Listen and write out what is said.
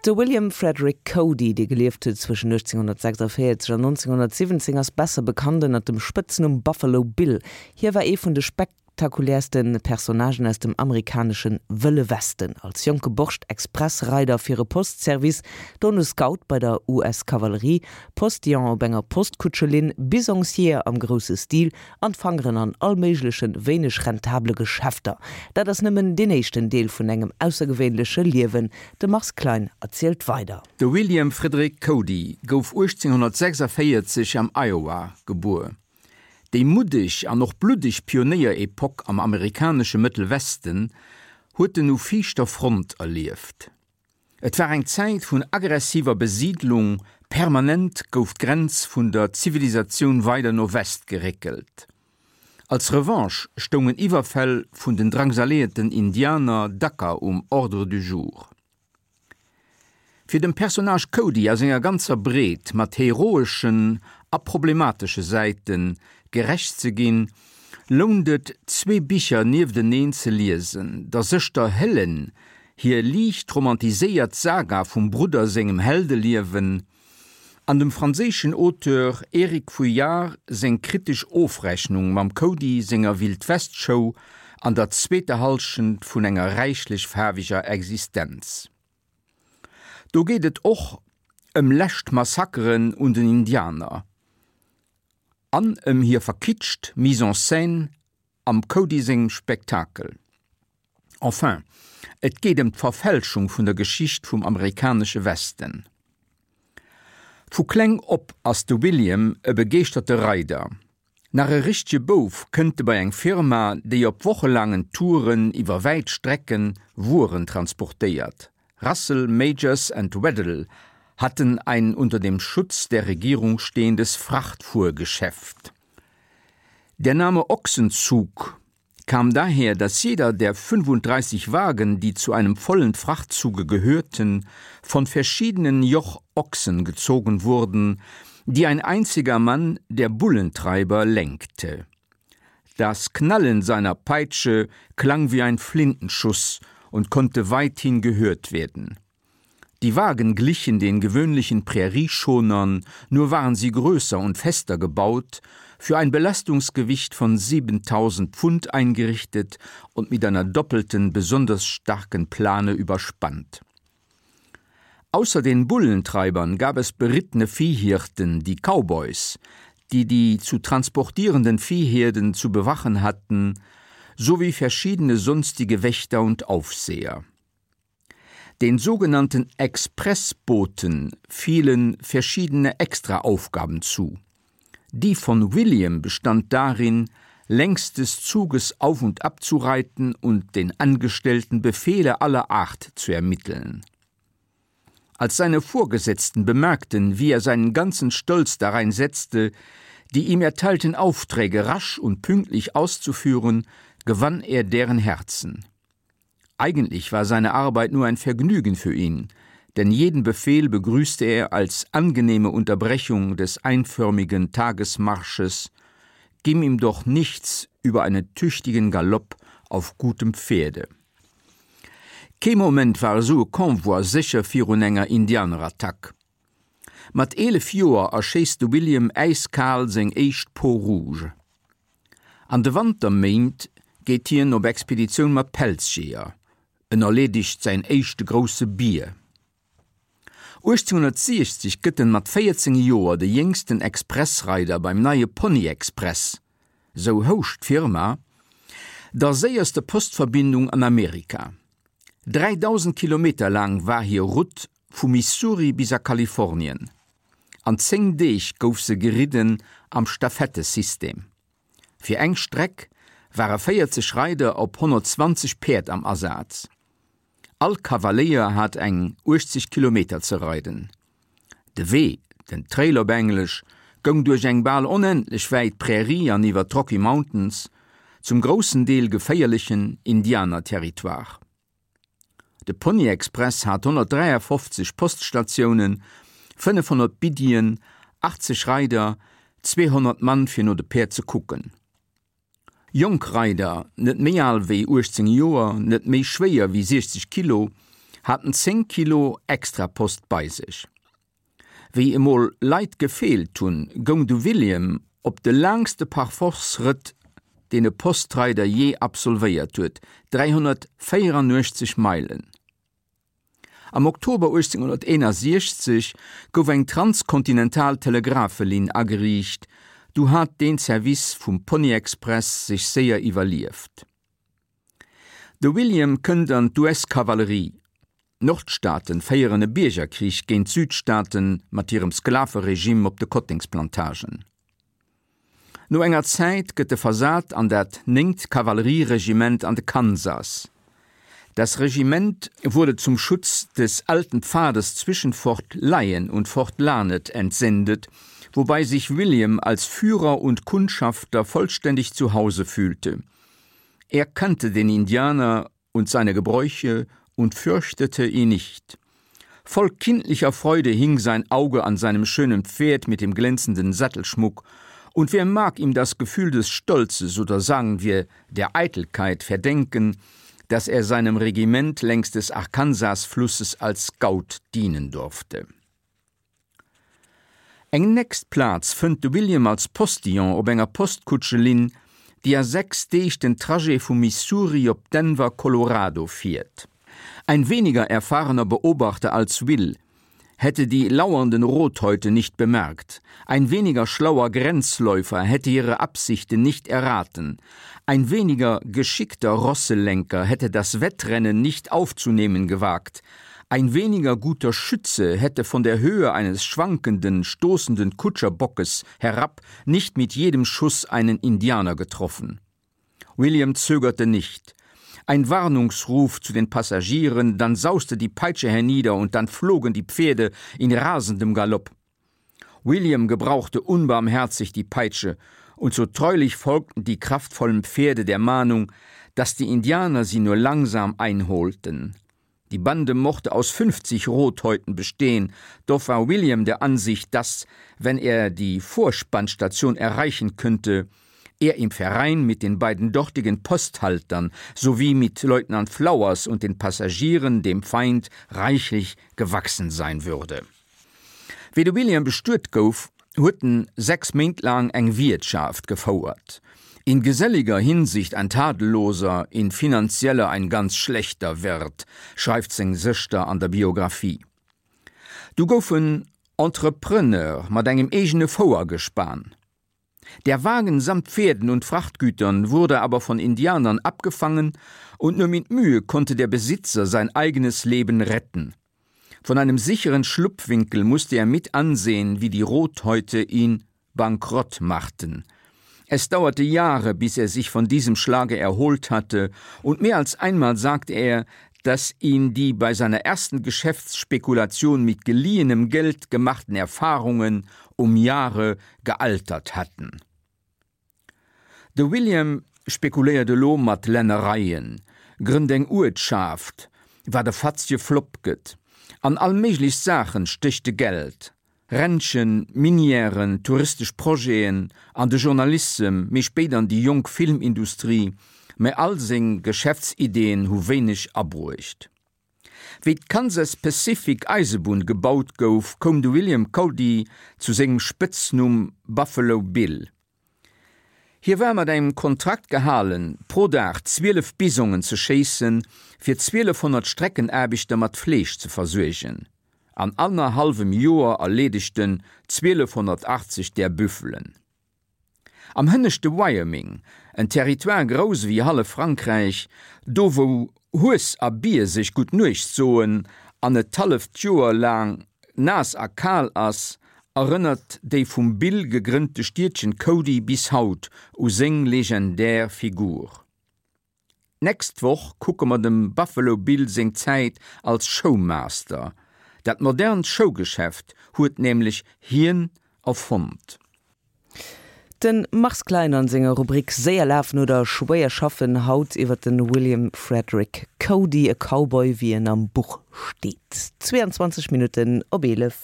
De William Frederick Cody, dee gelieft huet zwëschen 1846 an 1917, ass besser bekannt ënnert dem Spëtznumm Buffalo Bill. Hie war ee vun de spektakuläerste Personnagen aus dem amerikanesche Wëlle Westen. Als jonke Borscht Expressreider fir e Postservice, dono Scout bei der US-Kavallerie, Postillon op enger Postkutschelinn, Bisongsjeeër am grousse Stil an d'Fangeren an all méiglechen, wéineg rentable Geschäfter. Dat ass nëmmen deen éischten Deel vun engem aussergewéinleche Liewen. De Mars Klein erzielt weider. De William Frederick Cody gouf 1846 am Iowa gebuer. Déi muddeg an och bluddeg Pionéier-Epoque am amerikanesche Mëttel Westen huet en u viischter Front erlieft. Et war eng Zäit vun aggressiver Besiidlung, permanent gouf d'Grenz vun der Zivilisatioun weider no West geréckelt. Als Revanche stoungen Iwwerfäll vun den drangsaléierten Indianer dacker um Ordre du jour. Fir dem Personnage Cody a senger ganzer Breet mat heroeschen a problematesche Säite gerecht ze ginn, lount et, zwee Bicher niefteneen ze liesen, der Sëschter Helen hir liicht romantiséiert Saga vum Brudder sengem Heldeliewen an dem franséischen Auteur Eric Vuillard seng kritesch Ofrechnung mam Cody senger Wildwest-Show an der zweeter Hallschent vun enger räichlech faarweger Existenz. Do geet et och ëm lescht Massakeren un den Indianer an ëm hir verkitscht Mise en scène am Cody sengem Spektakel. Enfin, et geet ëm d'Verfälschung vun der Geschicht vum amerikanesche Westen. Vu kleng op ass de William e begeeschterte Reider. Nach e richtege Bouf kënnt e bei eng Firma, déi op wochelaangen Touren iwwer wäit Strecken Wueren transportéiert. Russell, Majors and Weddell hatten ein unter dem Schutz der Regierung stehendes Frachtfuhrgeschäft. Der Name Ochsenzug kam daher, dass jeder der 35 Wagen, die zu einem vollen Frachtzuge gehörten, von verschiedenen Jochochsen gezogen wurden, die ein einziger Mann, der Bullentreiber, lenkte. Das Knallen seiner Peitsche klang wie ein Flintenschuss und konnte weithin gehört werden. Die Wagen glichen den gewöhnlichen Prärieschonern, nur waren sie größer und fester gebaut, für ein Belastungsgewicht von 7000 Pfund eingerichtet und mit einer doppelten, besonders starken Plane überspannt. Außer den Bullentreibern gab es berittene Viehhirten, die Cowboys, die die zu transportierenden Viehherden zu bewachen hatten, sowie verschiedene sonstige Wächter und Aufseher. Den sogenannten Expressboten fielen verschiedene Extraaufgaben zu. Die von William bestand darin, längs des Zuges auf und ab zu reiten und den Angestellten Befehle aller Art zu ermitteln. Als seine Vorgesetzten bemerkten, wie er seinen ganzen Stolz darein setzte, die ihm erteilten Aufträge rasch und pünktlich auszuführen, gewann er deren Herzen. Eigentlich war seine Arbeit nur ein Vergnügen für ihn, denn jeden Befehl begrüßte er als angenehme Unterbrechung des einförmigen Tagesmarsches, ging ihm doch nichts über einen tüchtigen Galopp auf gutem Pferde. Kee Moment war esou e Convoi sécher virun enger Indianerattack. Mat 11 Joer erschéisst de William äiskal seng éischt Peau rouge. An de Wanterméint geet hien op Expeditioun mat Pelzjeeër, en erleedegt säin éischte grousse Bier. 1860 gëtt en mat 14 Joer de jéngsten Expressreider beim neie Pony Express, sou housch d'Firma, der séierste Postverbindung an Amerika. 3.000 Kilometer laang war hir Route vu Missouri bis a Kalifornien. An 10 Deeg gouf se geridden am Stafettesystem. Fir eng Streck ware 40 Reider op 120 Päerd am Asaz. All Kavaléier hat eng 80 Kilometer ze reiden. De Wee, den Trail op Englesch, goung duerch eng bal onendlech wäit Prärie an iwwer d'Rocky Mountains, zum groussen Deel geféierlechen Indianerterritoire. De Pony Express hat 153 Poststatiounen, 500 Biddien, 80 Reider, 200 Mann fir no de Päerd ze kucken. Jonk Reider, net méi al wéi 18 Joer, net méi schwéier wéi 60 Kilo, haten 10 Kilo Extrapost bei sech. Wéi emol Leit gefeelt hunn, goung de William op de laangste Parforce-Rëtt, deen e Postreider jee absolvéiert huet, 384 Meilen. Am Oktober 1861 gouf eng transkontinental Telegraphelinn ageriicht, du hat deen Service vum Pony-Express sech séier iwwerlieft. De William kënnt an d'US-Kavallerie. D'Nordstaaten féieren e Biergerkrich géint d'Südstaaten mat hirem Sklaveregime op de Kottengsplantagen. No enger Zäit gëtt e versat an dat néngt Kavallerieregiment an de Kansas. Das Regiment wurde zum Schutz des alten Pfades zwischen Fort Lyon und Fort Larned entsendet, wobei sich William als Führer und Kundschafter vollständig zu Hause fühlte. Er kannte den Indianer und seine Gebräuche und fürchtete ihn nicht. Voll kindlicher Freude hing sein Auge an seinem schönen Pferd mit dem glänzenden Sattelschmuck, und wer mag ihm das Gefühl des Stolzes oder sagen wir der Eitelkeit verdenken, dass er seinem Regiment längs des Arkansasflusses als Scout dienen durfte. Eng nächst Plaz fënnt de William als Postillon op enger Postkutschelinn, déi a 6 Deeg den Trajet vu Missouri op Denver, Colorado fiert. Ein weniger erfahrener Beobachter als Will hätte die lauernden Rothäute nicht bemerkt, ein weniger schlauer Grenzläufer hätte ihre Absichten nicht erraten, ein weniger geschickter Rosselenker hätte das Wettrennen nicht aufzunehmen gewagt, Ein weniger guter Schütze hätte von der Höhe eines schwankenden, stoßenden Kutscherbockes herab nicht mit jedem Schuss einen Indianer getroffen. William zögerte nicht. Ein Warnungsruf zu den Passagieren, dann sauste die Peitsche hernieder und dann flogen die Pferde in rasendem Galopp. William gebrauchte unbarmherzig die Peitsche, und so treulich folgten die kraftvollen Pferde der Mahnung, dass die Indianer sie nur langsam einholten. Die Bande mochte aus 50 Rothäuten bestehen, doch war William der Ansicht, dass, wenn er die Vorspannstation erreichen könnte, er im Verein mit den beiden dortigen Posthaltern sowie mit Leutnant Flowers und den Passagieren dem Feind reichlich gewachsen sein würde. Wéi de William bestuet gouf, huet en 6 Méint laang eng Wiertschaft gefouert. In geselliger Hinsicht ein tadelloser, in finanzieller ein ganz schlechter Wirt, schreift seng Sëschter an der Biographie. Du gouf en Entrepreneur mat engem eegene Fouergespan. Der Wagen samt Pferden und Frachtgütern wurde aber von Indianern abgefangen und nur mit Mühe konnte der Besitzer sein eigenes Leben retten. Von einem sicheren Schlupfwinkel musste er mit ansehen, wie die Rothäute ihn bankrott machten. Es dauerte Jahre, bis er sich von diesem Schlage erholt hatte, und mehr als einmal sagte er, dass ihn die bei seiner ersten Geschäftsspekulation mit geliehenem Geld gemachten Erfahrungen um Jahre gealtert hatten. De William spekuléiert elo mat Lännereien, grënnt eng Uertschaft, wat e fatzege Flopp gëtt. An all méiglech Saachen stécht e Geld, Ranchen, Minièren, touristesch Projeten, an de Journalissem, méi spéit an déi jonk Filmindustrie, mä all seng Geschäftsideeën hu wéineg abruecht. Wéi d'Kansas Pacific Eisebunn gebaut gouf, koum de William Cody zu sengem Spëtznumm Buffalo Bill. Hie war mat engem Kontrakt gehalen, pro Dag 12 Bisongen ze schéissen, fir 1200 Streckenaarbechter mat Fleesch ze versuergen. An annerhallwem Joer erleedegt en 1280 där Büffelen. Am hënneschte Wyoming, en Territoire grouss ewéi hallef Frankräich, do wou Hues a Bier sech gutt Nuecht soen an et d'halleft Joer laang naass a kal ass, erënnert déi vum Bill gegrënnte Stiedchen Cody bis haut u seng legendär Figur. D'nächst Woch kucke mer dem Buffalo Bill seng Zäit als Showmaster. Dat modernt Showgeschäft huet nämlech hien erfonnt. De Mars Klein an senger Rubrik Séier lafen oder schwéier schaffen haut iwwer de William Frederick Cody, e Cowboy wéi en am Buch steet. 22 Minutten op 11.